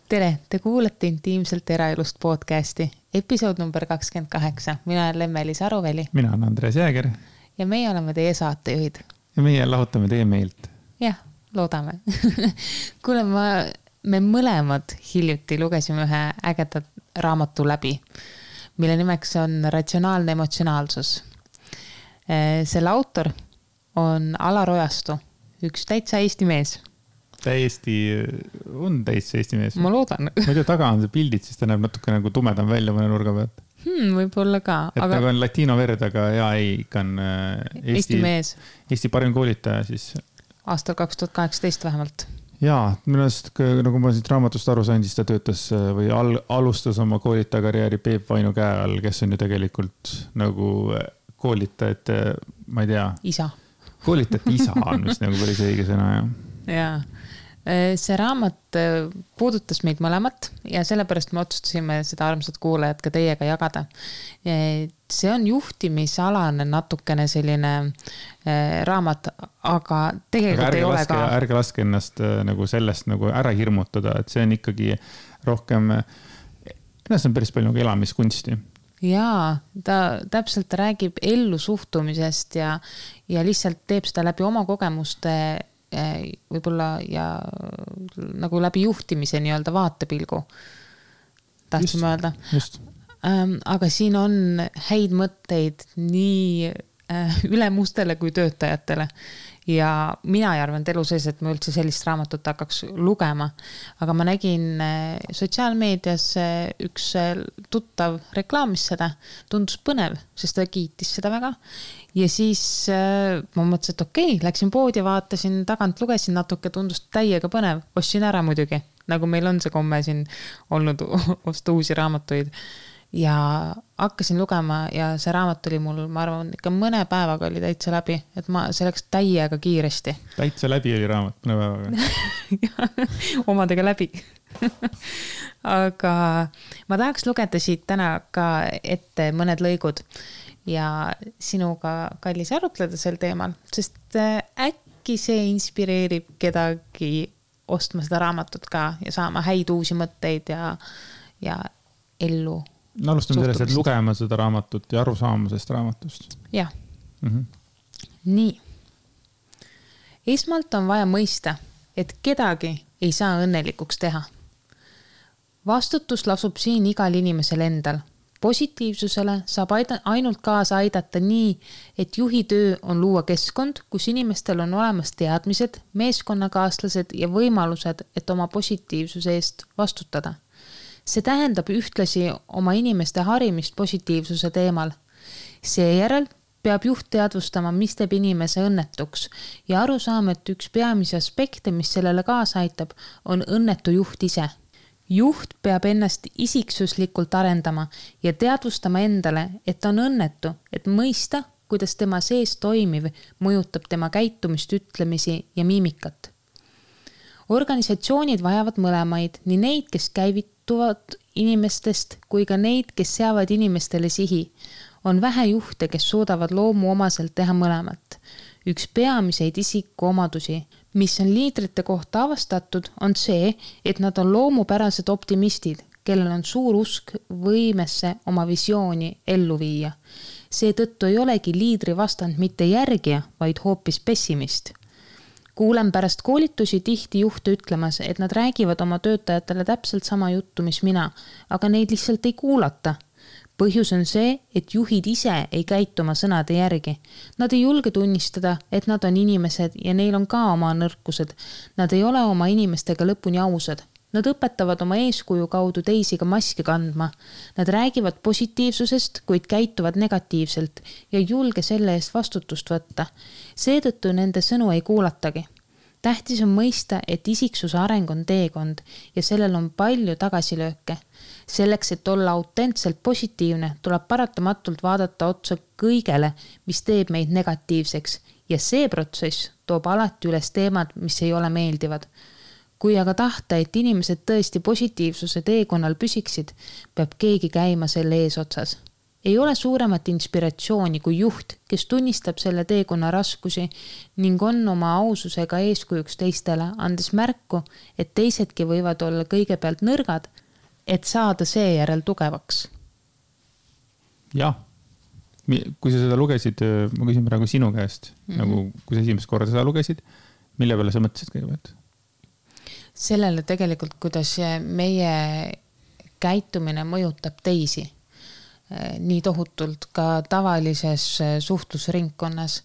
Tere, te kuulete Intiimselt eraelust podcasti, episood number 28. Mina olen Lemmelis Aruveli. Mina olen Andres Jääger. Ja meie oleme teie saatejuhid. Ja meie lahutame teie meelt. Jah, loodame. Kuule, me mõlemad hiljuti lugesime ühe ägedat raamatu läbi, mille nimeks on Ratsionaalne emotsionaalsus. Selle autor on Alar Ojastu, üks täitsa Eesti mees. Täiesti Eesti mees. Ma loodan. Ma ei tea, taga on see pildid, siis ta näeb natuke nagu tumedam välja mõne nurga pealt. Võib-olla ka. Et aga... nagu on latino verd, aga ikka on Eesti mees. Eesti parim koolitaja siis. Aastal 2018 vähemalt. Jaa, millest, nagu ma siit raamatust aru sain, siis ta töötas või alustas oma koolitaja karjääri Peep Vainu käe all, kes on ju tegelikult nagu koolitajate, ma ei tea. Isa. Koolitajate isa on vist nagu päris õige sõna, jah. Jaa. See raamat puudutas meid mõlemat ja sellepärast me otsustasime seda armsat kuulajat ka teiega jagada. See on juhtimisalane natukene selline raamat, aga tegelikult ei ole ka... Ärge laske ennast nagu sellest nagu ära hirmutada, et see on ikkagi rohkem, see on päris palju nagu elamiskunsti. Jaa, ta täpselt räägib ellu suhtumisest ja lihtsalt teeb seda läbi oma kogemuste võib-olla ja nagu läbi juhtimise nii-öelda vaatepilgu tahtsime öelda. Aga siin on häid mõtteid nii ülemustele kui töötajatele ja mina ei arvanud elu sees, et ma üldse sellist raamatut hakkaks lugema, aga ma nägin sotsiaalmeedias üks tuttav reklaamis seda, tundus põnev, sest ta kiitis seda väga ja siis ma mõtlesin, et okei, läksin poodi, vaatasin tagant, lugesin natuke, tundus täiega põnev, ostsin ära muidugi, nagu meil on see komme siin olnud osta uusi raamatuid ja hakkasin lugema ja see raamat oli mul, ma arvan, ikka mõne päevaga oli täitsa läbi, et see läks täiega kiiresti. Täitsa läbi oli raamat mõne päevaga. Omadega läbi. Aga ma tahaks lugeda siit täna ka ette mõned lõigud ja sinuga, kallis, arutleda sel teemal, sest äkki see inspireerib kedagi ostma seda raamatut ka ja saama häid uusi mõtteid ja ellu. No, alustame sellest, et lugema seda raamatut ja aru saamusest raamatust. Jah. Nii. Esmalt on vaja mõista, et kedagi ei saa õnnelikuks teha. Vastutus lasub siin igal inimesel endal. Positiivsusele saab ainult kaasa aidata nii, et juhi töö on luua keskkond, kus inimestel on olemas teadmised, meeskonnakaaslased ja võimalused, et oma positiivsuse eest vastutada. See tähendab ühtlasi oma inimeste harimist positiivsuse teemal. Seejärel peab juht teadvustama, mis teeb inimese õnnetuks ja aru saama, et üks peamisi aspekte, mis sellele kaasa aitab, on õnnetu juht ise. Juht peab ennast isiksuslikult arendama ja teadvustama endale, et on õnnetu, et mõista, kuidas tema sees toimiv mõjutab tema käitumist, ütlemisi ja miimikat. Organisatsioonid vajavad mõlemaid, nii neid, kes käivituvad inimestest, kui ka neid, kes seavad inimestele sihi. On vähe juhte, kes suudavad loomu omaselt teha mõlemat. Üks peamiseid isiku omadusi, mis on liidrite kohta avastatud, on see, et nad on loomupärased optimistid, kellel on suur usk võimesse oma visiooni ellu viia. Seetõttu ei olegi liidri vastand mitte järgija, vaid hoopis pessimist. Kuulen pärast koolitusi tihti juhte ütlemas, et nad räägivad oma töötajatele täpselt sama juttu, mis mina, aga neid lihtsalt ei kuulata. Põhjus on see, et juhid ise ei käitu oma sõnade järgi. Nad ei julge tunnistada, et nad on inimesed ja neil on ka oma nõrkused. Nad ei ole oma inimestega lõpuni ausad. Nad õpetavad oma eeskuju kaudu teisi ka maski kandma. Nad räägivad positiivsusest, kuid käituvad negatiivselt ja ei julge selle eest vastutust võtta. Seetõttu nende sõnu ei kuulatagi. Tähtis on mõista, et isiksuse areng on teekond ja sellel on palju tagasilööke. Selleks, et olla autentselt positiivne, tuleb paratamatult vaadata otsa kõigele, mis teeb meid negatiivseks ja see protsess toob alati üles teemad, mis ei ole meeldivad. Kui aga tahta, et inimesed tõesti positiivsuse teekonnal püsiksid, peab keegi käima selle eesotsas. Ei ole suuremat inspiratsiooni kui juht, kes tunnistab selle teekonna raskusi ning on oma aususega eeskujuks teistele, andes märku, et teisedki võivad olla kõigepealt nõrgad, et saada seejärel tugevaks. Jah, kui sa seda lugesid, ma küsin praegu sinu käest, nagu kui sa esimest korda seda lugesid, mille peale sa mõtlesid kõigepealt? Sellele tegelikult, kuidas meie käitumine mõjutab teisi. Nii tohutult ka tavalises suhtlusringkonnas.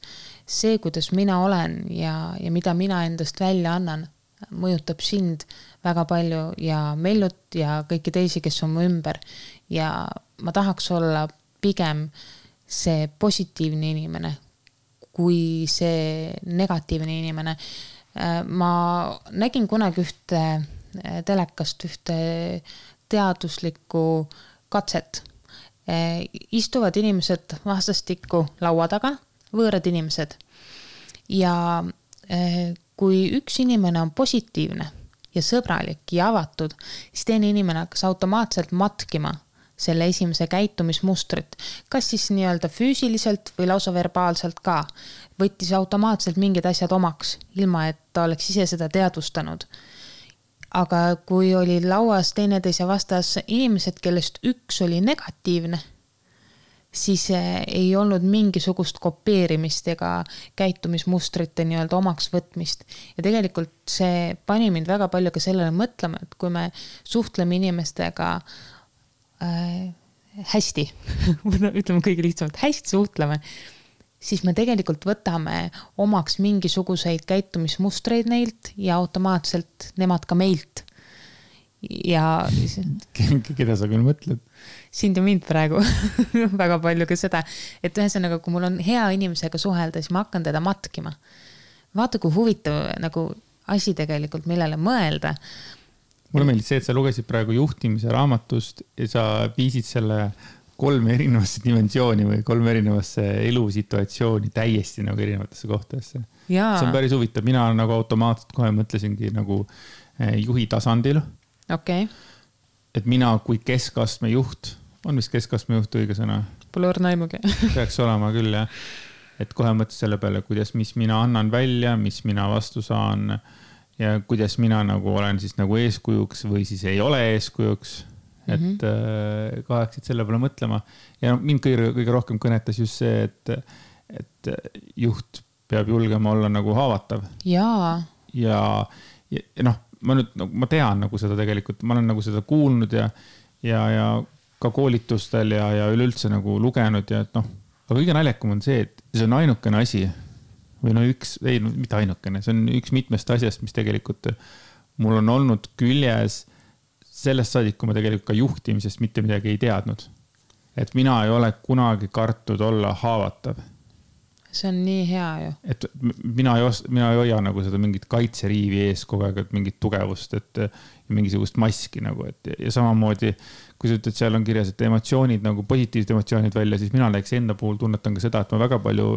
See, kuidas mina olen ja mida mina endast välja annan, mõjutab sind väga palju ja Mellut ja kõiki teisi, kes on mu ümber. Ja ma tahaks olla pigem see positiivne inimene kui see negatiivne inimene. Ma nägin kunagi ühte telekast ühte teaduslikku katset. Istuvad inimesed vastastikku laua taga, võõrad inimesed. Ja kui üks inimene on positiivne ja sõbralik ja avatud, siis teine inimene hakkas automaatselt matkima selle esimese käitumismustrit. Kas siis nii-öelda füüsiliselt või lausa verbaalselt ka. Võttis automaatselt mingid asjad omaks, ilma et ta oleks ise seda teadvustanud. Aga kui oli lauas teineteise vastas inimesed, kellest üks oli negatiivne, siis ei olnud mingisugust kopeerimist ega käitumismustrite nii-öelda omaks võtmist. Ja tegelikult see pani mind väga palju ka sellele mõtlema, et kui me suhtleme inimestega hästi, ütleme kõige lihtsamalt, hästi suhtleme, siis me tegelikult võtame omaks mingisuguseid käitumismustreid neilt ja automaatselt nemad ka meilt. Ja keda sa küll mõtled? Sind ja mind praegu väga palju ka seda, et ühesõnaga, kui mul on hea inimesega suhelda, siis ma hakkan teda matkima. Vaata, kui huvitav nagu asi tegelikult, millele mõelda. Mulle meeldis see, et sa lugesid praegu juhtimise raamatust ja sa viisid selle 3 erinevasse dimensiooni või 3 erinevasse elusituatsiooni täiesti nagu erinevatesse kohtadesse. See on päris huvitav. Mina nagu automaatselt kohe mõtlesingi nagu juhi tasandil. Okay. Et mina kui keskastme juht, on vist keskastme juht õige sõna? Pole õrnaimugi. Peaks olema küll, jah. Et kohe mõtles selle peale, kuidas, mis mina annan välja, mis mina vastu saan ja kuidas mina nagu olen siis nagu eeskujuks või siis ei ole eeskujuks. Et kaheksid selle peale mõtlema. Ja mind kõige rohkem kõnetas just see, et juht peab julgema olla nagu haavatav. Jaa. Ja noh, ma tean nagu seda tegelikult, ma olen nagu seda kuulnud ja ka koolitustel ja üleüldse nagu lugenud ja et noh, aga kõige naljakam on see, et see on ainukene asi või no mitte ainukene, see on üks mitmest asjast, mis tegelikult mul on olnud küljes sellest saadik, kui ma tegelikult ka juhtimisest mitte midagi ei teadnud. Et mina ei ole kunagi kartud olla haavatav. See on nii hea ju. Et mina ei hoia nagu seda mingit kaitseriivi ees kogu aeg, et mingit tugevust, et mingisugust maski nagu, ja samamoodi, kui sa ütled, seal on kirjas, et emotsioonid, nagu positiivsed emotsioonid välja, siis mina näeks enda puhul tunnetan ka seda, et ma väga palju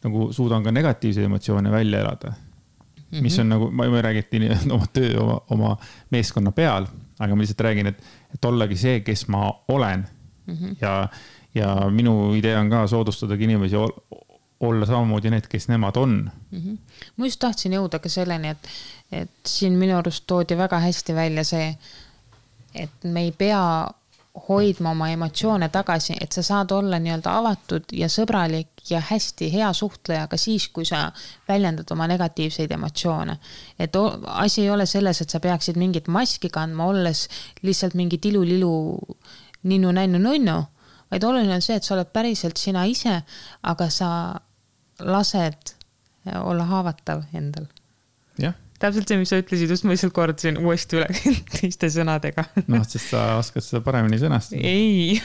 nagu suudan ka negatiivseid emotsioone välja elada. Mis on nagu, ma ei räägi, et oma töö, oma meeskonna peal, aga ma lihtsalt räägin, et ollagi see, kes ma olen. Ja minu idee on ka soodustadagi inimesi olla samamoodi need, kes nemad on. Ma just tahtsin jõuda ka selleni, et siin minu arust toodi väga hästi välja see, et me ei pea hoidma oma emotsioone tagasi, et sa saad olla nii-öelda avatud ja sõbralik ja hästi hea suhtleja ka siis, kui sa väljendad oma negatiivseid emotsioone. Et asi ei ole selles, et sa peaksid mingit maski kandma, olles lihtsalt mingi tilu-lilu ninnu-nännu-nunnu, vaid oluline on see, et sa oled päriselt sina ise, aga sa lased olla haavatav endal. Jah. Täpselt see, mis sa ütlesid, just ma lihtsalt kordasin uuesti üle teiste sõnadega. Noh, sest sa oskad seda paremini sõnastada. Ei,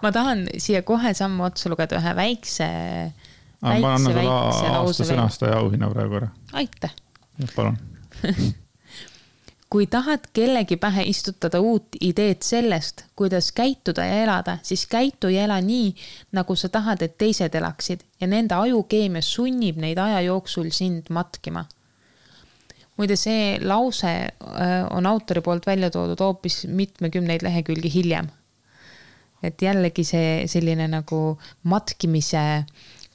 ma tahan siia kohe sammu otsa lugeda ühe väikse ma annan sulle aasta sõnastaja auhinna praegu ära. Aitäh. Ja, palun. Kui tahad kellegi pähe istutada uut ideed sellest, kuidas käituda ja elada, siis käitu ja ela nii, nagu sa tahad, et teised elaksid ja nende ajukeemia sunnib neid aja jooksul sind matkima. Muide, see lause on autori poolt välja toodud hoopis mitmekümneid lehekülgi hiljem. et jällegi see selline nagu matkimise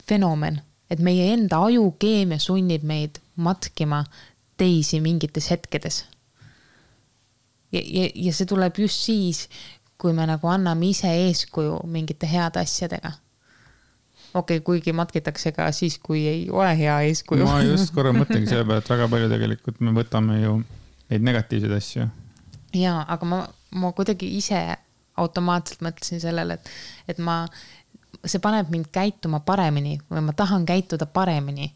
fenomen, et meie enda ajukeemia sunnib meid matkima teisi mingites hetkedes. Ja see tuleb just siis, kui me nagu anname ise eeskuju mingite heade asjadega. Kuigi matkitakse ka siis, kui ei ole hea eeskuju. Ma just korra mõtlengi selle peale, et väga palju tegelikult me võtame ju neid negatiivseid asju. Jaa, aga ma kuidagi ise automaatselt mõtlesin sellele, et see paneb mind käituma paremini või ma tahan käituda paremini.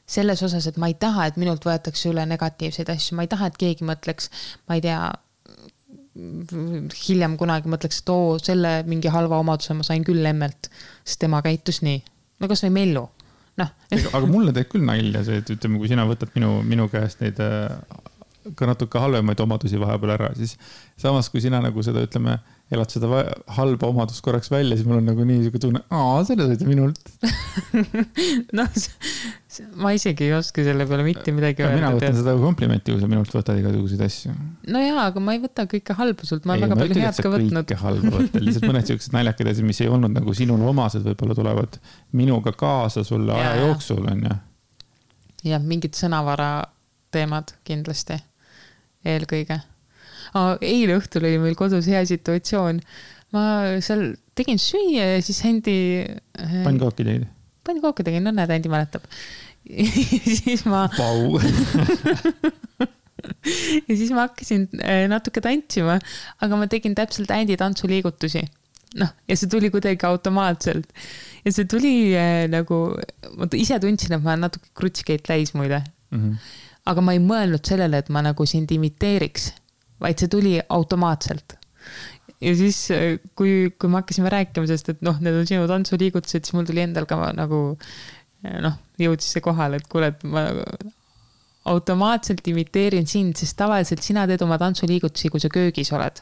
Selles osas, et ma ei taha, et minult võetakse üle negatiivseid asju. Ma ei taha, et keegi mõtleks, ma ei tea, hiljem kunagi mõtleks, et selle mingi halva omaduse ma sain küll emmelt, sest tema käitus nii. No kas või Mellu? No. Aga mulle teeb küll nalja see, et ütleme, kui sina võtad minu käest neid ka natuke halvemaid omadusi vahepeal ära, siis samas kui sina nagu seda, ütleme, elad seda halba omadust korraks välja, siis mul on nagu nii tunne, selle sõita minult. No, ma isegi ei oska selle peale mitte midagi öelda. Mina võtan seda komplimenti, kui sa minult võtad igasuguseid asju. No jaa, aga ma ei võta kõike halba sult, ma olen väga palju head ka võtnud. Kõike halba võtta, lihtsalt mõned sellised naljakad asjad, mis ei olnud nagu sinul omased, võib-olla tulevad minuga kaasa sulle aja jooksul, on ju. Ja mingid sõnavara teemad kindlasti. Eelkõige. Eile õhtul oli meil kodus hea situatsioon. Ma seal tegin süüa ja siis Hendi... Pannkooki tegid? Pannkooki tegin, no näed, Hendi mäletab. Siis ma... Pau! Ja siis ma hakkasin natuke tantsima, aga ma tegin täpselt Hendi tantsuliigutusi. Ja see tuli kuidagi automaatselt. Ja see tuli nagu... Ma ise tundsin, et ma natuke krutsikeid täis muide. Aga ma ei mõelnud sellele, et ma nagu sind imiteeriks, vaid see tuli automaatselt. Ja siis, kui me hakkasime rääkima, sest et need on sinu tantsuliigutused, siis mul tuli endal ka nagu, jõudis see kohal, et kuule, et ma automaatselt imiteerin sind, sest tavaliselt sina teed oma tantsuliigutusi, kui sa köögis oled.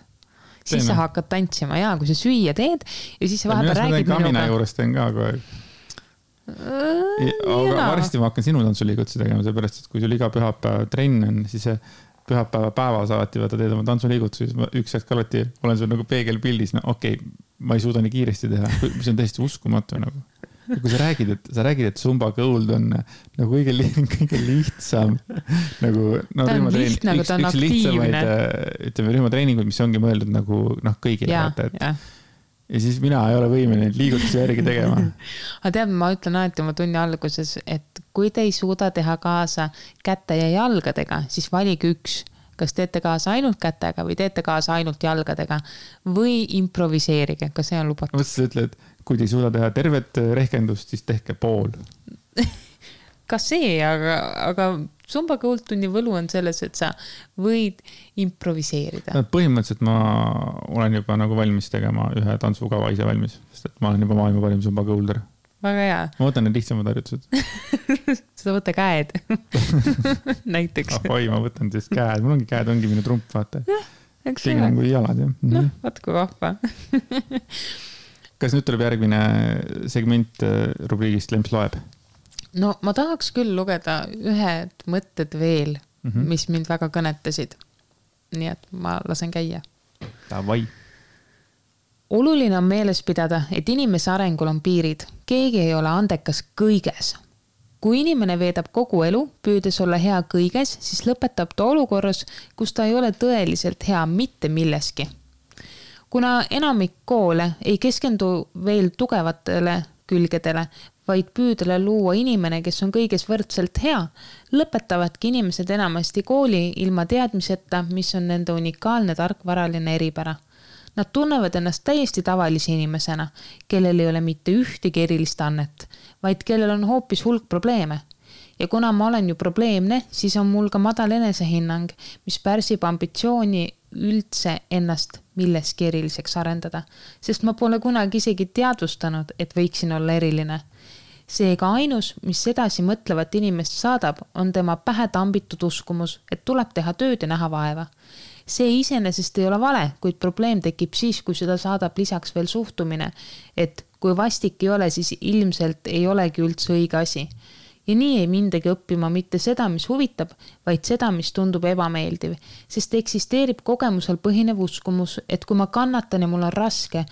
Siis sa hakkad tantsima, kui sa süüa teed ja siis sa vahepeal räägid minuga. Kamina juures teen ka kogu aeg. Aga varsti ma hakkan sinu tantsuliigutusi tegema, seepärast, et kui sul iga pühapäev trenn on, siis pühapäeva päevas alati vaata teed oma tantsuliigutusi, siis üks hetk alati olen sul nagu peegelpildis, ma ei suuda nii kiiresti teha, mis on täiesti uskumatu nagu. Ja kui sa räägid, et Zumba Gold on nagu kõige lihtsam nagu, ta on lihtne, aga ta on aktiivne. Ütleme, rühmatreeningud, mis ongi mõeldud nagu kõigile vaata, et ja siis mina ei ole võimeline liigutusi järgi tegema. Aga tead, ma ütlen alati oma tunni alguses, et kui te ei suuda teha kaasa käte ja jalgadega, siis valige üks. Kas teete kaasa ainult kätega või teete kaasa ainult jalgadega või improviseerige, kas see on lubatud? Mõtlesin, ütled, kui te ei suuda teha tervet rehkendust, siis tehke pool. Ka see, aga Zumba Gold tunni võlu on selles, et sa võid improviseerida. Põhimõtteliselt ma olen juba nagu valmis tegema ühe tantsukava ise valmis, sest et ma olen juba maailma parim Zumba Golder. Väga hea. Ma võtan need lihtsamad harjutused. Seda võtta käed. Näiteks. Oi, ma võtan siis käed. Mul ongi käed, ongi minu trump, vaata. Tegin on kui jalad, jah. Vaatku vahva. Kas nüüd tuleb järgmine segment rubriigist Lemps loeb? No ma tahaks küll lugeda ühed mõtted veel, mis mind väga kõnetasid. Nii et ma lasen käia. Davai. Oluline on meeles pidada, et inimese arengul on piirid. Keegi ei ole andekas kõiges. Kui inimene veedab kogu elu, püüdes olla hea kõiges, siis lõpetab ta olukorras, kus ta ei ole tõeliselt hea mitte milleski. Kuna enamik koole ei keskendu veel tugevatele külgedele, vaid püüdele luua inimene, kes on kõiges võrdselt hea, lõpetavadki inimesed enamasti kooli ilma teadmiseta, mis on nende unikaalne tarkvaraline eripära. Nad tunnevad ennast täiesti tavalise inimesena, kellel ei ole mitte ühtegi erilist annet, vaid kellel on hoopis hulk probleeme. Ja kuna ma olen ju probleemne, siis on mul ka madal enesehinnang, mis pärsib ambitsiooni üldse ennast milleski eriliseks arendada, sest ma pole kunagi isegi teadvustanud, et võiksin olla eriline. Seega ainus, mis edasi mõtlevat inimest saadab, on tema pähe tambitud uskumus, et tuleb teha tööd ja näha vaeva. See iseenesest ei ole vale, kuid probleem tekib siis, kui seda saadab lisaks veel suhtumine, et kui vastik ei ole, siis ilmselt ei olegi üldse õige asi. Ja nii ei mindagi õppima mitte seda, mis huvitab, vaid seda, mis tundub ebameeldiv, sest eksisteerib kogemusel põhinev uskumus, et kui ma kannatan ja mul on raske,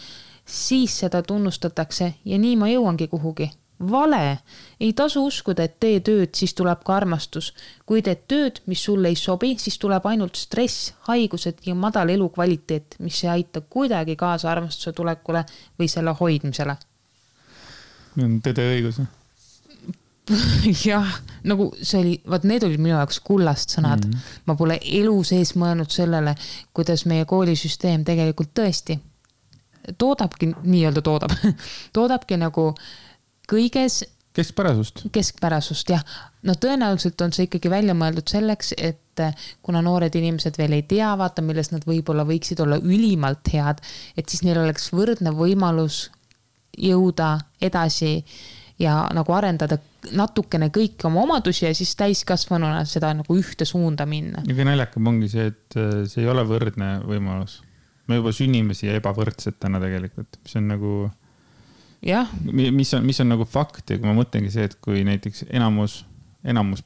siis seda tunnustatakse ja nii ma jõuangi kuhugi. Vale! Ei tasu uskuda, et tee tööd, siis tuleb ka armastus. Kui teed tööd, mis sulle ei sobi, siis tuleb ainult stress, haigused ja madal elukvaliteet, mis ei aita kuidagi kaasa armastuse tulekule või selle hoidmisele. Tõde õigus. Jah, nagu see oli, vaat need olid minu jaoks kullast sõnad. Ma pole elu sees mõelnud sellele, kuidas meie koolisüsteem tegelikult tõesti toodabki, nii-öelda toodabki nagu kõiges keskpärasust, jah. No tõenäoliselt on see ikkagi välja mõeldud selleks, et kuna noored inimesed veel ei tea, vaata, milles nad võib-olla võiksid olla ülimalt head, et siis neil oleks võrdne võimalus jõuda edasi ja nagu arendada natukene kõiki oma omadusi ja siis täiskasvanuna seda nagu ühte suunda minna. Ja kui naljakam ongi see, et see ei ole võrdne võimalus. Me juba sünnime siia ebavõrdset täna tegelikult, mis on nagu... Jah. Mis on nagu fakt ja kui ma mõtlengi see, et kui näiteks enamus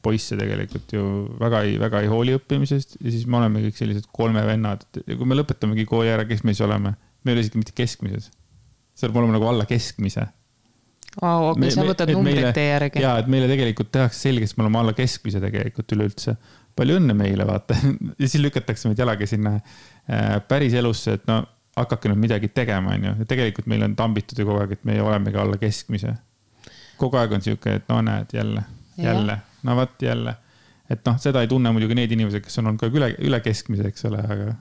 poisse tegelikult ju väga ei hooli õppimisest ja siis me oleme kõik sellised 3 vennad ja kui me lõpetamegi kooli ära, kes me siis oleme, me ei ole isegi mitte keskmises. See oleme nagu alla keskmise. Okay, sa võtad numbrid teie järgi. Jaa, et meile tegelikult tehakse selgeks, me oleme alla keskmise tegelikult üleüldse. Palju õnne meile, vaata. Ja siis lükatakse meid jalaga sinna päris elusse, et no hakake nüüd midagi tegema. Ja tegelikult meil on tambitud ju kogu aeg, et me olemegi alla keskmise. Kogu aeg on siuke, et no näed, jälle. No vaat jälle. Et noh, seda ei tunne muidugi need inimesed, kes on olnud ka üle keskmise, eks ole, aga...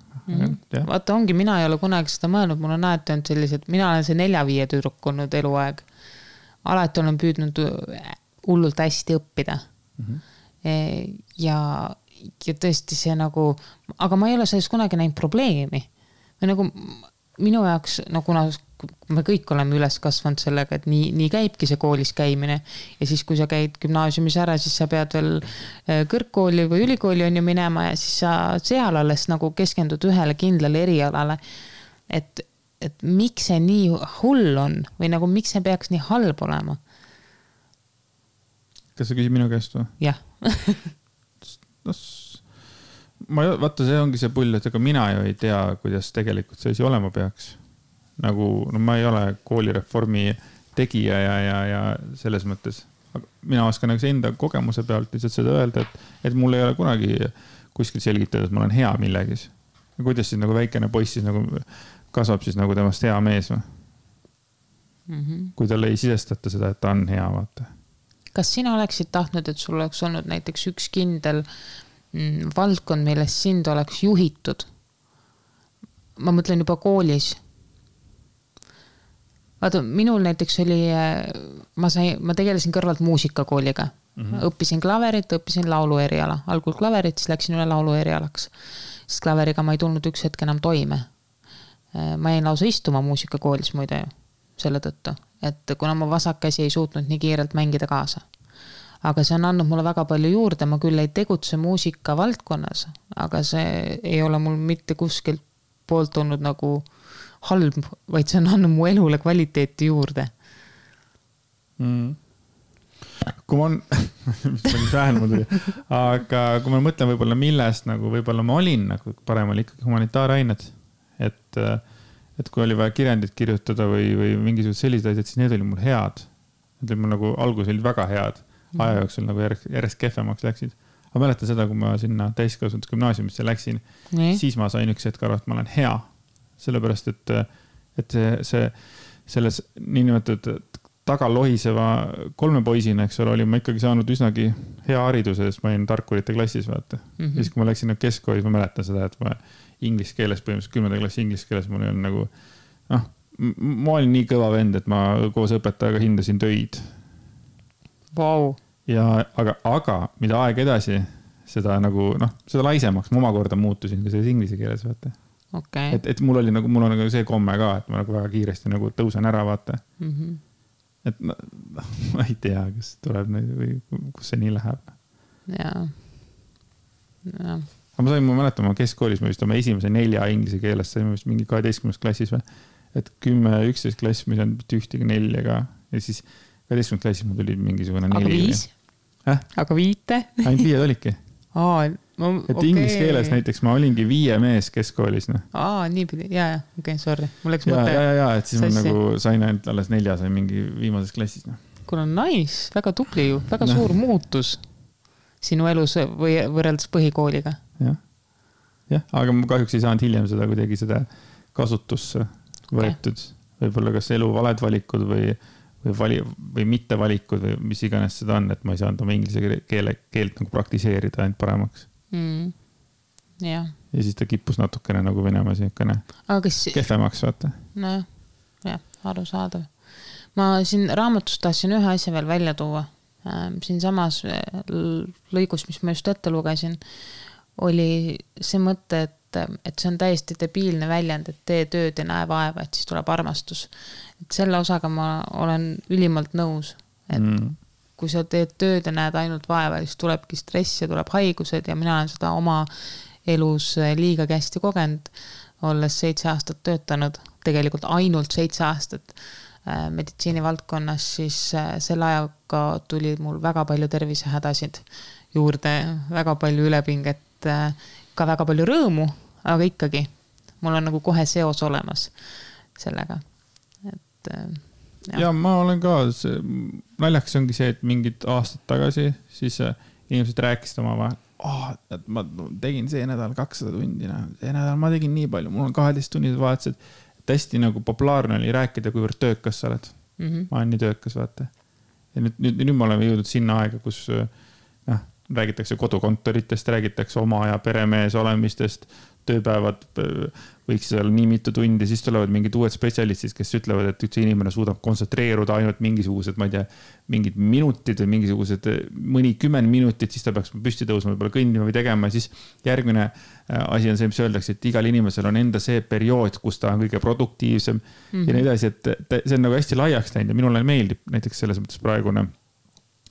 Vaata ongi, mina ei ole kunagi seda mõelnud, mul on näete on sellised, mina olen see 4-5 tüdruk olnud eluaeg. Alati olen püüdnud hullult hästi õppida. Ja tõesti see nagu, aga ma ei ole selles kunagi näinud probleemi. Või nagu minu jaoks, no kuna me kõik oleme üles kasvanud sellega, et nii käibki see koolis käimine. Ja siis, kui sa käid gümnaasiumis ära, siis sa pead veel kõrgkooli või ülikooli on ju minema ja siis sa seal alles nagu keskendud ühele kindlale erialale. Et miks see nii hull on või nagu miks see peaks nii halb olema? Kas sa küsid minu käest või? Jah. Vaata, see ongi see pull, et ega mina ju ei tea, kuidas tegelikult see asi olema peaks. Nagu, no ma ei ole koolireformi tegija ja selles mõttes. Mina oskan nagu enda kogemuse pealt lihtsalt seda öelda, et mul ei ole kunagi kuskil selgitada, et ma olen hea millegis. Ja kuidas siis nagu väikene poiss siis nagu kasvab siis nagu temast hea mees või? Kui talle ei sisestata seda, et ta on hea, vaata. Kas sina oleksid tahtnud, et sul oleks olnud näiteks üks kindel valdkond, millest sind oleks juhitud? Ma mõtlen juba koolis. Vaata, minul näiteks oli, ma tegelesin kõrvalt muusikakooliga. Õppisin klaverit, õppisin laulu eriala. Algul klaverit, siis läksin üle laulu erialaks. Sest klaveriga ma ei tulnud üks hetk enam toime. Ma jäin lausa istuma muusikakoolis muide selle tõttu, et kuna ma vasakkäsi ei suutnud nii kiirelt mängida kaasa. Aga see on andnud mulle väga palju juurde, ma küll ei tegutse muusika valdkonnas, aga see ei ole mul mitte kuskilt poolt olnud nagu halb, vaid see on andnud mu elule kvaliteeti juurde. Kui ma aga kui ma mõtlen võib-olla millest, nagu võib-olla ma olin, nagu parem oli ikkagi humanitaarained, et kui oli vaja kirjandit kirjutada või mingisugused sellised asjad, siis need olid mul head. Need olid mul nagu algus olid väga head. Aja jooksul nagu järjest kehvemaks läksid. Aga mäletan seda, kui ma sinna täiskasvanud gümnaasiumisse läksin, siis ma sain üks hetk aru, et ma olen hea. Sellepärast, et selles niinimetatud tagalohiseva 3 poisina, eks ole, oli ma ikkagi saanud üsnagi hea hariduse, sest ma olin tarkurite klassis, vaata. Ja siis, kui ma läksin keskkoolis, ma mäletan seda, et ma inglise keeles, põhimõtteliselt 10. klassi inglise keeles, mul oli nagu, ma olin nii kõva vend, et ma koos õpetajaga hindasin töid. Wow. Ja, aga mida aeg edasi, seda nagu, seda laisemaks ma omakorda muutusin ka selles inglise keeles, vaata. Okay. Et mul on nagu see komme ka, et ma nagu väga kiiresti nagu tõusen ära, vaata. Et ma ei tea, kas tuleb või kus see nii läheb. Jaa. Aga ma mäletan, ma keskkoolis, ma vist oma esimese 4 inglise keeles saime vist mingi 12. klassis või, et 10-11 klass, mis on ühtegi 4 ka ja siis 12. klassis mul tuli mingisugune 4. Aga 5? Aga 5? Ainult 5 olidki. Et inglise keeles näiteks ma olingi 5 mees keskkoolis. Nii pidi, okei, sorry. Mul läks mõte. Et siis ma nagu sain ainult alles 4, sain mingi viimases klassis. Kuule, nice, väga tubli ju, väga suur muutus sinu elus või võrreldes põhikooliga. Jah, aga ma kahjuks ei saanud hiljem seda kuidagi seda kasutusse võetud. Võib-olla kas elu valed valikud või mitte valikud või mis iganes seda on, et ma ei saanud oma inglise keelt nagu praktiseerida ainult paremaks. Ja siis ta kippus natukene nagu Venemaa siukene kehvemaks, vaata. Nojah, arusaadav. Ma siin raamatust tahtsin ühe asja veel välja tuua. Siin samas lõigus, mis ma just ette lugesin, oli see mõte, et see on täiesti debiilne väljend, et tee tööd ja näe vaeva, et siis tuleb armastus. Et selle osaga ma olen ülimalt nõus, et kui sa teed tööd ja näed ainult vaeva, siis tulebki stress ja tuleb haigused ja mina olen seda oma elus liiga hästi kogenud, olles 7 aastat töötanud, tegelikult ainult 7 aastat meditsiinivaldkonnas, siis selle ajaga tuli mul väga palju tervisehädasid juurde, väga palju ülepinget, ka väga palju rõõmu, aga ikkagi mul on nagu kohe seos olemas sellega. Ja ma olen ka, naljaks ongi see, et mingid aastad tagasi siis inimesed rääkisid oma vahel, et ma tegin see nädal 200 tundi, see nädal ma tegin nii palju, mul on 12 tunnid vahetused, et hästi nagu populaarne oli rääkida, kuivõrd töökas sa oled. Ma olen nii töökas, vaata. Ja nüüd me oleme jõudnud sinna aega, kus räägitakse kodukontoritest, räägitakse oma ja peremees olemistest, tööpäevad võiks olla nii mitu tundi, siis tulevad mingid uued spetsialistid, kes ütlevad, et üldse inimene suudab kontsentreeruda ainult mingisugused, ma ei tea, mingid minutid või mingisugused mõni 10 minutit, siis ta peaks püsti tõusma, võib-olla kõndima või tegema. Siis järgmine asi on see, mis öeldakse, et igal inimesel on enda see periood, kus ta on kõige produktiivsem ja nii edasi, et see on nagu hästi laiaks läinud ja minule meeldib näiteks selles mõttes praegune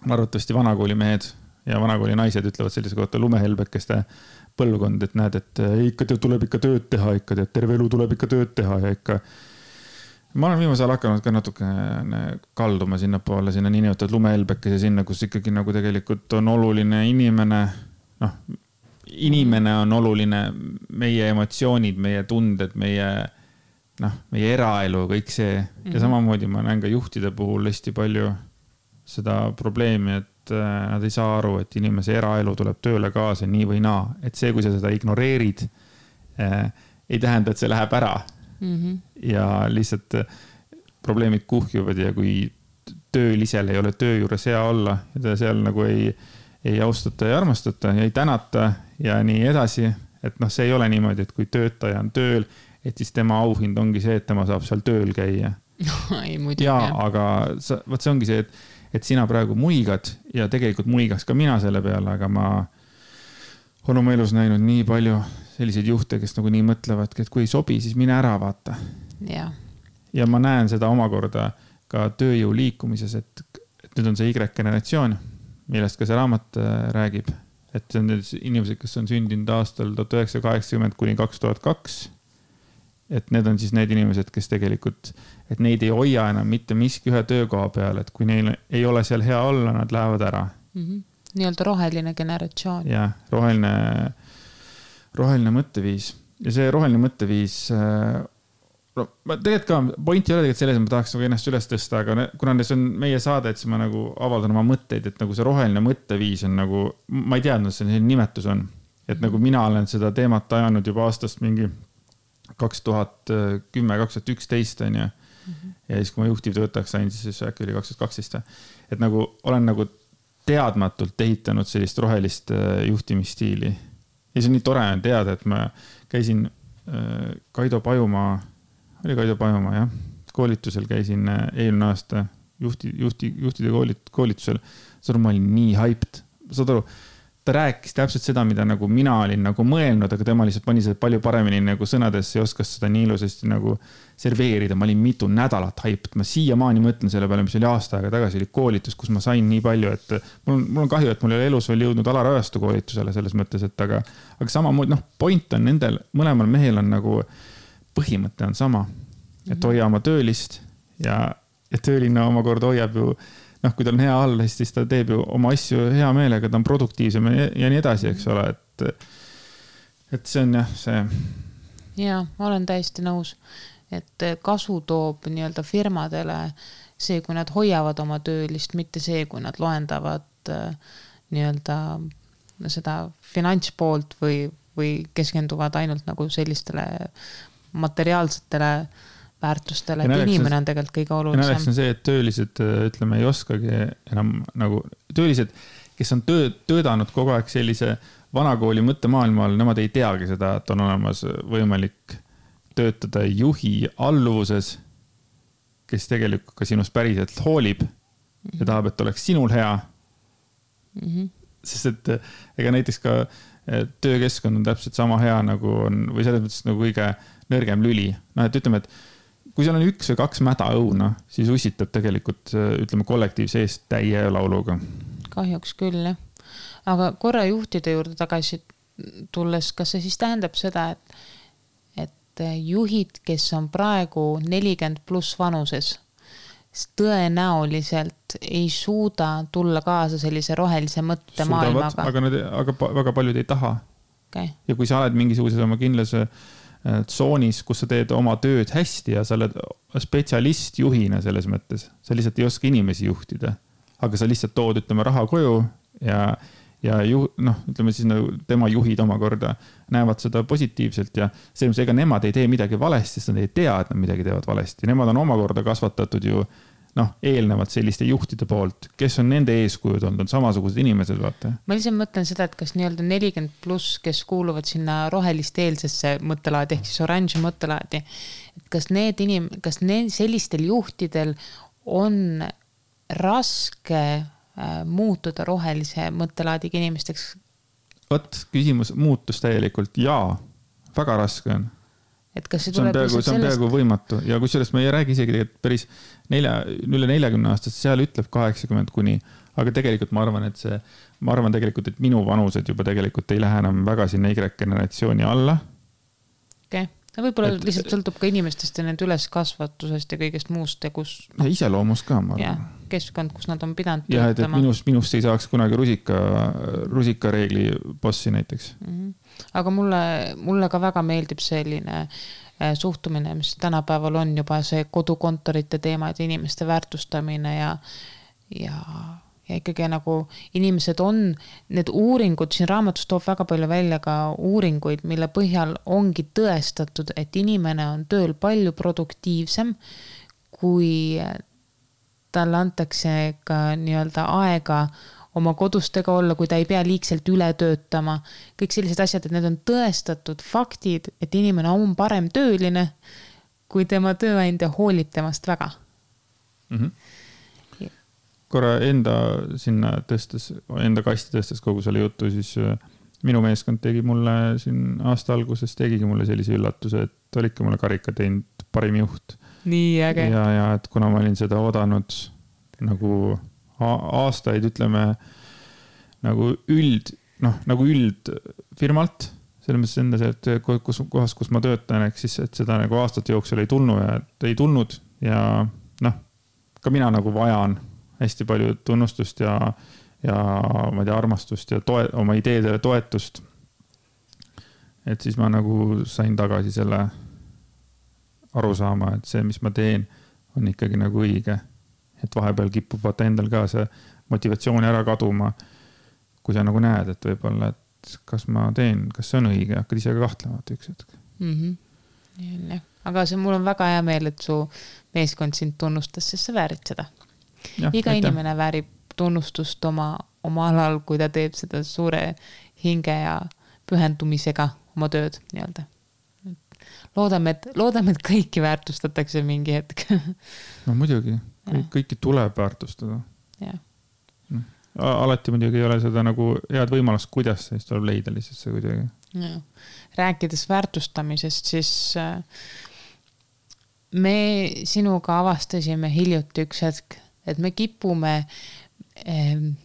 arvatavasti vanakooli mehed ja vanakooli naised ütlevad sellise kohta lumehelbekeste põlvkond, et näed, et ikka tuleb ikka tööd teha, ikka terve elu tuleb ikka tööd teha ja ikka. Ma olen viimasel hakanud ka natuke kalduma sinnapoole, sinna niinimetatud lumehelbekese sinna, kus ikkagi nagu tegelikult on oluline inimene, inimene on oluline, meie emotsioonid, meie tunded, meie eraelu, kõik see. Ja samamoodi ma näen ka juhtide puhul hästi palju seda probleemi, et nad ei saa aru, et inimese eraelu tuleb tööle kaasa nii või naa. Et see, kui sa seda ignoreerid, ei tähenda, et see läheb ära. Ja lihtsalt probleemid kuhjuvad ja kui töölisel ei ole töö juures hea olla ja ta seal nagu ei austata ja armastata ja ei tänata ja nii edasi, et see ei ole niimoodi, et kui töötaja on tööl, et siis tema auhind ongi see, et tema saab seal tööl käia. Aga see ongi see, et sina praegu muigad ja tegelikult muigaks ka mina selle peale, aga ma olen oma elus näinud nii palju selliseid juhte, kes nagu nii mõtlevad, et kui ei sobi, siis mine ära vaata. Ja ma näen seda omakorda ka tööjõu liikumises, et nüüd on see Y-generatsioon, millest ka see raamat räägib, et see on inimesed, kes on sündinud aastal 1980 kuni 2002. Et need on siis need inimesed, kes tegelikult, et neid ei hoia enam mitte miski ühe töökoha peal, et kui neil ei ole seal hea olla, nad lähevad ära. Nii-öelda roheline generatsioon. Ja, roheline mõtteviis. Ja see roheline mõtteviis, tegelikult ka point ei ole tegelikult selles, et ma tahaks nagu ennast üles tõsta, aga kuna see on meie saade, et siis ma nagu avaldan oma mõtteid, et nagu see roheline mõtteviis on nagu, ma ei teadnud, see nimetus on. Et nagu mina olen seda teemat ajanud juba aastast mingi 2010-2011 on ja siis kui ma juhtivtöötajaks sain, siis äkki oli 2012. Et nagu olen nagu teadmatult ehitanud sellist rohelist juhtimisstiili. Ja see on nii tore on teada, et ma käisin Kaido Pajumaa, jah, koolitusel käisin eelmine aasta juhtide koolitusel. Ma olin nii hyped. Saad aru, ta rääkis täpselt seda, mida nagu mina olin nagu mõelnud, aga tema lihtsalt pani seda palju paremini nagu sõnadesse ja oskas seda nii ilusasti nagu serveerida. Ma olin mitu nädalat hyped. Ma siiamaani mõtlen selle peale, mis oli aasta aega tagasi, oli koolitus, kus ma sain nii palju, et mul on kahju, et mul ei ole elus veel jõudnud Alarajastu koolitusele selles mõttes, et aga samamoodi, point on nendel, mõlemal mehel on nagu põhimõte on sama, et hoia oma töölist ja tööline omakorda hoiab ju noh, kui tal on hea all, siis ta teeb ju oma asju hea meelega, ta on produktiivsem ja nii edasi, eks ole, et see on jah, see. Ja, ma olen täiesti nõus, et kasu toob nii-öelda firmadele see, kui nad hoiavad oma töölist, mitte see, kui nad loendavad nii-öelda seda finantspoolt või keskenduvad ainult nagu sellistele materiaalsetele väärtustele, et inimene on tegelikult kõige olulisem. Naleks on see, et töölised, ütleme, ei oskagi enam nagu töölised, kes on töödanud kogu aeg sellise vanakooli mõttemaailmal, nemad ei teagi seda, et on olemas võimalik töötada juhi alluvuses, kes tegelikult ka sinust päriselt hoolib ja tahab, et oleks sinul hea. Sest et ega näiteks ka töökeskkond on täpselt sama hea nagu on, või selles mõttes nagu kõige nõrgem lüli. No, et ütleme, et kui seal on 1 või 2 mäda õuna, siis ussitab tegelikult, ütleme, kollektiivse eest täie lauluga. Kahjuks küll, jah. Aga korra juhtide juurde tagasi tulles, kas see siis tähendab seda, et juhid, kes on praegu 40 pluss vanuses, tõenäoliselt ei suuda tulla kaasa sellise rohelise mõtte maailmaga. Aga väga paljud ei taha. Okay. Ja kui sa oled mingisuguses oma kindlas tsoonis, kus sa teed oma tööd hästi ja sa oled spetsialist juhina selles mõttes, sa lihtsalt ei oska inimesi juhtida, aga sa lihtsalt tood, ütleme, raha koju ja ütleme siis tema juhid omakorda näevad seda positiivselt ja selles ega nemad ei tee midagi valesti, sest nad ei tea, et nad midagi teevad valesti. Nemad on omakorda kasvatatud ju eelnevad selliste juhtide poolt, kes on nende eeskujud olnud, on samasugused inimesed, vaata. Ma lihtsalt mõtlen seda, et kas nii-öelda 40 pluss, kes kuuluvad sinna rohelist eelsesse mõttelaadi, ehk siis orange mõttelaadi, et kas sellistel juhtidel on raske muutuda rohelise mõttelaadiga inimesteks? Võt, küsimus muutus täielikult. Jaa, väga raske on. Et kas see on peaaegu võimatu ja kusjuures me ei räägi isegi päris üle 40 aastast, seal ütleb 80 kuni, aga tegelikult ma arvan, et minu vanused juba tegelikult ei lähe enam väga sinna Y-generatsiooni alla. Okay. Võib-olla lihtsalt sõltub ka inimestest ja nende üleskasvatusest ja kõigest muust ja kus... Ja iseloomust ka, ma arvan. Ja, keskkond, kus nad on pidanud töötama. Ja, et minust ei saaks kunagi rusikareegli bossi näiteks. Aga mulle ka väga meeldib selline suhtumine, mis tänapäeval on juba see kodukontorite teema, et inimeste väärtustamine ja ikkagi nagu inimesed on, need uuringud, siin raamatus toob väga palju välja ka uuringuid, mille põhjal ongi tõestatud, et inimene on tööl palju produktiivsem, kui talle antakse ka nii-öelda aega oma kodustega olla, kui ta ei pea liigselt üle töötama. Kõik sellised asjad, et need on tõestatud faktid, et inimene on parem tööline, kui tema tööandja hoolib temast väga. Korra enda kasti tõstes kogu selle jutu, siis minu meeskond tegi mulle siin aasta alguses, tegigi mulle sellise üllatuse, et olidki mulle karika teinud parim juht. Nii äge. Ja et kuna ma olin seda odanud nagu aastaid, ütleme, nagu üld firmalt, selles mõttes endas, et kohas, kus ma töötan, ehk siis, et seda nagu aastate jooksul ei tulnud ja ka mina nagu vajan hästi palju tunnustust ja ma ei tea, armastust ja oma ideedele toetust. Et siis ma nagu sain tagasi selle arusaama, et see, mis ma teen, on ikkagi nagu õige. Et vahepeal kipub vaata endal ka see motivatsiooni ära kaduma, kui sa nagu näed, et võib-olla, et kas ma teen, kas see on õige, hakkad ise ka kahtlema üks hetk. Aga mul on väga hea meel, et su meeskond sind tunnustas, sest sa väärid seda. Iga inimene väärib tunnustust oma alal, kui ta teeb seda suure hinge ja pühendumisega oma tööd nii-öelda. Loodame, et kõiki väärtustatakse mingi hetk. No muidugi, kõiki tuleb väärtustada. Alati muidugi ei ole seda nagu head võimalust, kuidas siis tuleb leida lihtsalt see kuidagi. Rääkides väärtustamisest, siis me sinuga avastasime hiljuti üks hetk, et me kipume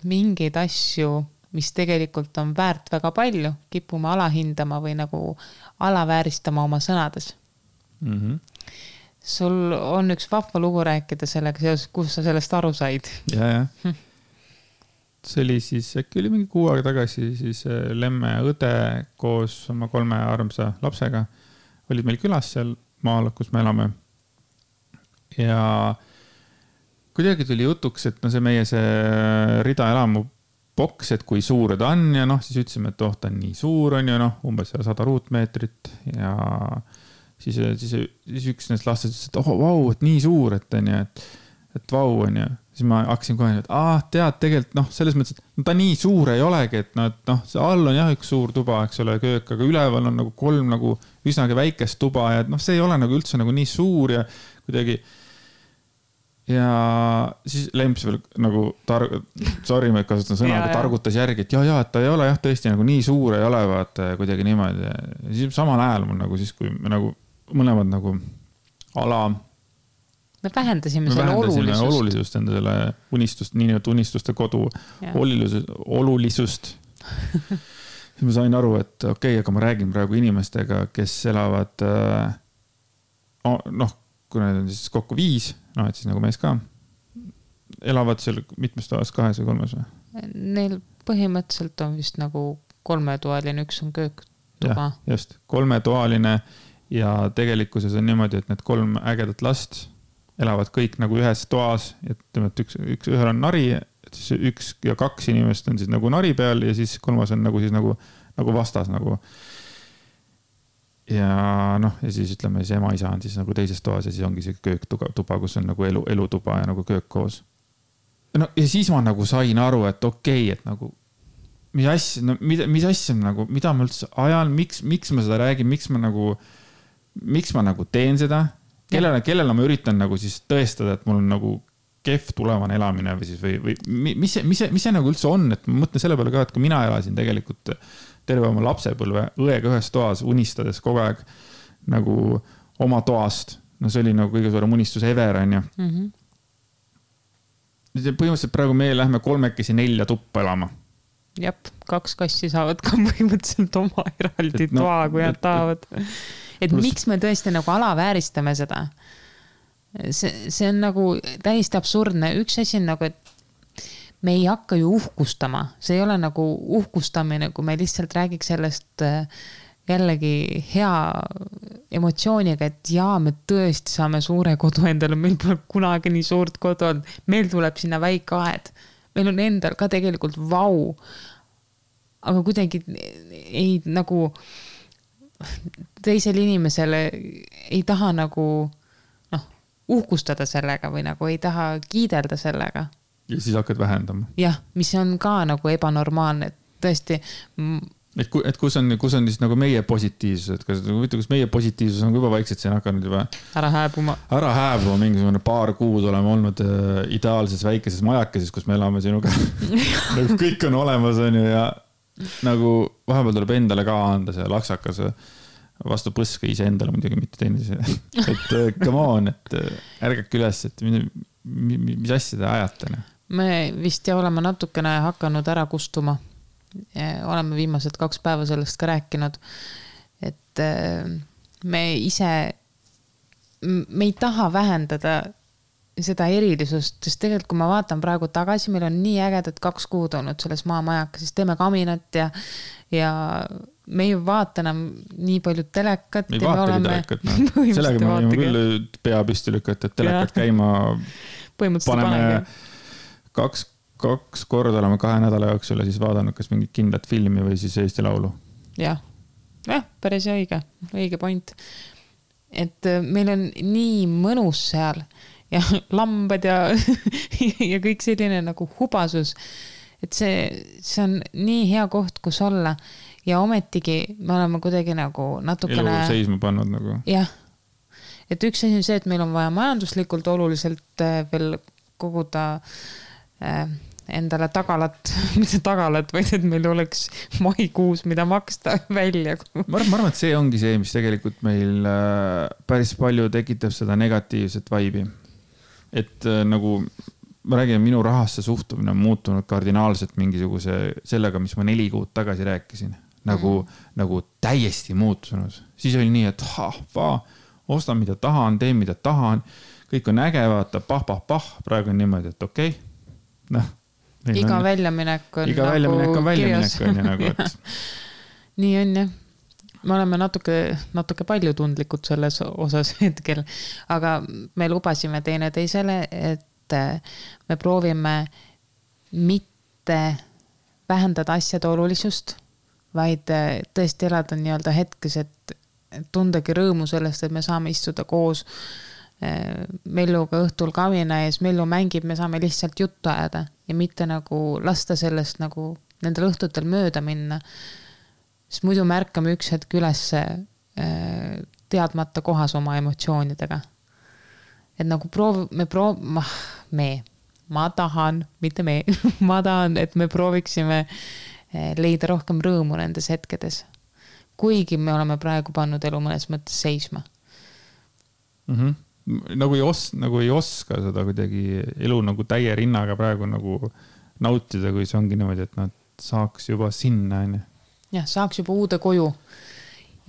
mingeid asju, mis tegelikult on väärt väga palju, kipume alahindama või nagu alavääristama oma sõnades. sul on üks vahva lugu rääkida sellega seoses, kus sa sellest aru said. Ja. See oli siis, äkki oli mingi 6 aega tagasi, siis Lemme õde koos oma 3 armsa lapsega olid meil külas seal maal, kus me elame. Ja kuidagi tuli jutuks, et no see meie see Rida elamu boks, et kui suur ta on ja noh, siis ütlesime, et ta on nii suur on ju, noh, umbes 100 ruutmeetrit ja siis üks neist lastest ütles, et vau, et nii suur, et on ju, et vau on ju. Siis ma hakkasin kohe, et tead tegelikult, noh, selles mõttes, et ta nii suur ei olegi, et noh, see all on jah üks suur tuba, eks ole, köök, aga üleval on nagu 3 nagu üsnagi väikest tuba ja noh, see ei ole nagu üldse nagu nii suur ja kuidagi. Ja siis Lemps veel nagu, sorry, ma kasutan sõna, aga targutas järgi, et et ta ei ole jah tõesti nagu nii suur ei ole, vaata kuidagi niimoodi. Ja siis samal ajal mul nagu siis, kui me nagu mõlemad nagu me vähendasime selle olulisust enda selle unistust, nii nüüd unistuste kodu olulisust. Siis ma sain aru, et okei, aga ma räägin praegu inimestega, kes elavad noh, kui need on siis kokku 5, noh, et siis nagu mees ka, elavad seal mitmes toas, 2 või 3 või? Neil põhimõtteliselt on vist nagu 3-toaline, üks on kööktuba. Ja, just, 3-toaline ja tegelikkuses on niimoodi, et need 3 ägedat last elavad kõik nagu ühes toas, et ühel on nari, siis 1 ja 2 inimest on siis nagu nari peal ja siis 3 on nagu siis nagu vastas nagu. Ja noh, ja siis ütleme, see ema-isa on siis nagu teises toas ja siis ongi see kööktuba, kus on nagu elutuba ja nagu köök koos. No ja siis ma nagu sain aru, et okei, et nagu mis asja nagu, mida ma üldse ajan, miks ma seda räägin, miks ma nagu teen seda, kellele ma üritan nagu siis tõestada, et mul on nagu kehv tulevane elamine või siis või mis see nagu üldse on, et ma mõtlen selle peale ka, et kui mina elasin tegelikult terve oma lapsepõlve õega ühes toas unistades kogu aeg nagu oma toast. No see oli nagu kõige suurem unistus ever, on ju. Põhimõtteliselt praegu meie lähme 3 4 tuppa elama. Jep, 2 kassi saavad ka põhimõtteliselt oma eraldi toa, kui nad tahavad. Et miks me tõesti nagu alavääristame seda? See on nagu täiesti absurdne. Üks asi on nagu, et me ei hakka ju uhkustama. See ei ole nagu uhkustamine, kui me lihtsalt räägiks sellest jällegi hea emotsiooniga, et me tõesti saame suure kodu endale, meil pole kunagi nii suurt kodu olnud, meil tuleb sinna väike aed, meil on endal ka tegelikult vau, aga kuidagi ei nagu teisel inimesele ei taha nagu uhkustada sellega või nagu ei taha kiidelda sellega. Ja siis hakkad vähendama. Jah, mis on ka nagu ebanormaalne, et tõesti. Et kus on siis nagu meie positiivsus, et kas meie positiivsus on juba vaikselt siin hakanud juba ära hääbuma, mingisugune paar kuud oleme olnud ideaalses väikeses majakeses, kus me elame sinuga. Nagu kõik on olemas on ju ja nagu vahepeal tuleb endale ka anda see laksakas vastu põske ise endale muidugi mitte teine. Et come on, et ärgake üles, et mis asja te ajate? Me vist oleme natukene hakanud ära kustuma. Oleme viimased 2 päeva sellest ka rääkinud, et me ei taha vähendada seda erilisust, sest tegelikult kui ma vaatan praegu tagasi, meil on nii ägedad 2 kuud olnud selles maamajakas, siis teeme kaminat ja me ei vaata enam nii palju telekat. Me ei vaatagi telekat, sellega me võime küll pea püsti lükata, et telekat käima paneme 2 korda oleme 2 nädala jooksul ja siis vaadanud kas mingit kindlat filmi või siis Eesti Laulu. Jah, päris õige point. Et meil on nii mõnus seal ja lambad ja kõik selline nagu hubasus, et see on nii hea koht, kus olla ja ometigi me oleme kuidagi nagu natukene elu seisma pannud nagu. Jah, et üks asi on see, et meil on vaja majanduslikult oluliselt veel koguda endale mitte tagalat, vaid et meil oleks maikuus, mida maksta välja. Ma arvan, et see ongi see, mis tegelikult meil päris palju tekitab seda negatiivset vaibi. Et nagu ma räägin, minu rahasse suhtumine on muutunud kardinaalselt mingisuguse sellega, mis ma 4 kuud tagasi rääkisin. Nagu täiesti muutunud. Siis oli nii, et ostan, mida tahan, teen, mida tahan, kõik on äge, vaata, pah, praegu on niimoodi, et okei. Noh, iga väljaminek on väljaminek on nagu, et... nii on jah. Me oleme natuke palju tundlikud selles osas hetkel, aga me lubasime teineteisele, et me proovime mitte vähendada asjade olulisust, vaid tõesti elada nii-öelda hetkes, et tundagi rõõmu sellest, et me saame istuda koos Melluga õhtul kavina ees, Mellu mängib, me saame lihtsalt juttu ajada ja mitte nagu lasta sellest nagu nendel õhtutel mööda minna. Sest muidu märkame üks hetk üles teadmata kohas oma emotsioonidega. Et nagu ma tahan, mitte me, ma tahan, et me prooviksime leida rohkem rõõmu nendes hetkedes. Kuigi me oleme praegu pannud elu mõnes mõttes seisma. Nagu ei oska seda kuidagi elu nagu täie rinnaga praegu nagu nautida, kui see ongi niimoodi, et nad saaks juba sinna. Jah, saaks juba uude koju.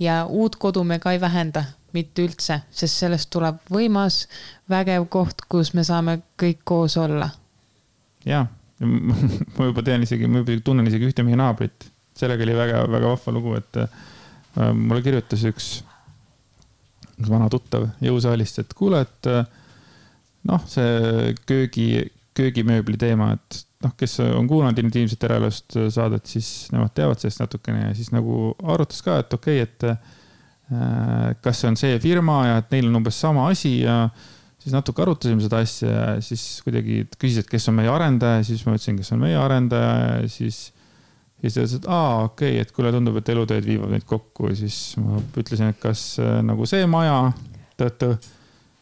Ja uut kodu me ka ei vähenda, mitte üldse, sest sellest tuleb võimas, vägev koht, kus me saame kõik koos olla. Jaa, ma juba tunnen isegi ühte meie naabrit. Sellega oli väga, väga vahva lugu, et mulle kirjutas üks vana tuttav jõusaalist, et kuule, et see köögimööbli teema, et kes on kuulanud intiimset eraelust saadet, siis nemad teavad sellest natukene ja siis nagu arutas ka, et okei, et kas see on see firma ja et neil on umbes sama asi ja siis natuke arutasime seda asja ja siis kuidagi küsis, et kes on meie arendaja, siis ma ütlesin, kes on meie arendaja ja siis ütles, et okei, et kuule tundub, et elutööd viivad neid kokku ja siis ma ütlesin, et kas nagu see maja siis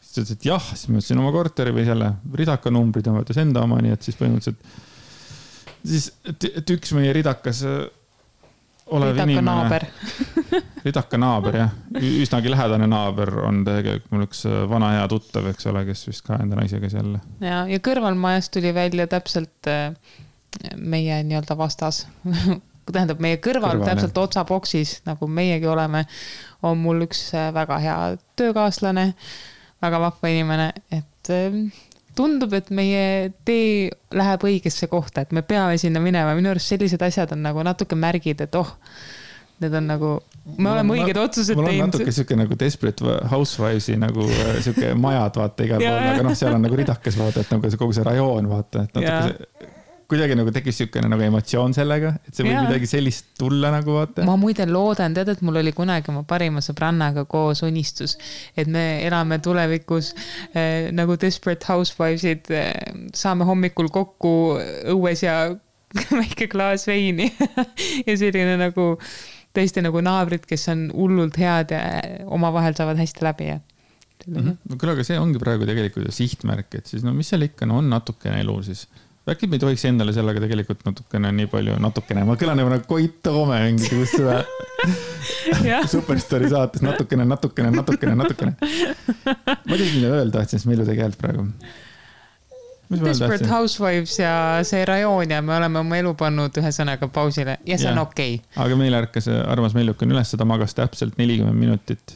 ütles, et jah, siis ma ütlesin oma korteri või selle ridaka numbrid ja mõttes enda oma, nii et siis põhimõtteliselt siis, et üks meie ridakas olev ridaka inimene naaber. Ridaka naaber, jah. Üsnagi lähedane naaber on tegelikult mul üks vana hea tuttav, eks ole, kes vist ka enda naisega seal. Ja kõrvalmajas tuli välja täpselt meie nii-öelda vastas. Tähendab, meie kõrval täpselt otsaboksis, nagu meiegi oleme, on mul üks väga hea töökaaslane, väga vahva inimene, et tundub, et meie tee läheb õigesse kohta, et me peame sinna minema. Minu arust sellised asjad on nagu natuke märgid, et need on nagu, me oleme õiged otsused teinud. Mul on natuke siuke nagu Desperate Housewivesi nagu siuke majad, vaata, igal pool, aga seal on nagu ridakas, vaata, et nagu kogu see rajoon, vaata, et natuke kuidagi nagu tekkis siukene nagu emotsioon sellega, et see võib midagi sellist tulla nagu, vaata. Ma muide loodan, tead, et mul oli kunagi oma parima sõbrannaga koos unistus, et me elame tulevikus nagu Desperate Housewivesid, saame hommikul kokku õues ja väike klaas veini ja selline nagu tõesti nagu naabrid, kes on hullult head ja omavahel saavad hästi läbi. Küll, aga see ongi praegu tegelikult sihtmärk, et siis mis seal ikka on natukene elu siis. Äkki me ei tohiks endale sellega tegelikult natukene nii palju, ma kõlan nagu Koit Toome mingisugust seda Superstory saates natukene. Ma tegin mida öelda, et siis Mellu tegelikult praegu. Desperate Housewives ja see rajoon ja me oleme oma elu pannud ühe sõnaga pausile ja see on okei. Aga meil ärkas armas Mellukan üles, seda magas täpselt 40 minutit.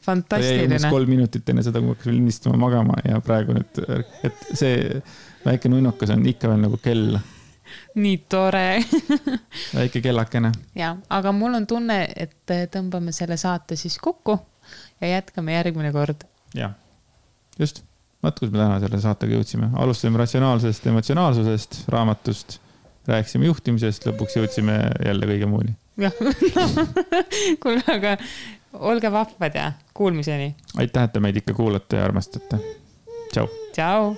Fantastiline. Ta jäi 3 minutit enne seda, kui hakkas lindistama magama ja praegu nüüd, et see väike nunnukas on ikka veel nagu kell. Nii tore. Väike kellakene. Ja, aga mul on tunne, et tõmbame selle saate siis kokku ja jätkame järgmine kord. Ja, just. Vaat, kus me täna selle saatega jõudsime. Alustasime ratsionaalsest, emotsionaalsusest, raamatust, rääkisime juhtimisest, lõpuks jõudsime jälle kõige muuni. Jah, kuule, aga olge vahvad ja kuulmiseni. Aitäh, et te meid ikka kuulate ja armastate. Tšau. Tšau.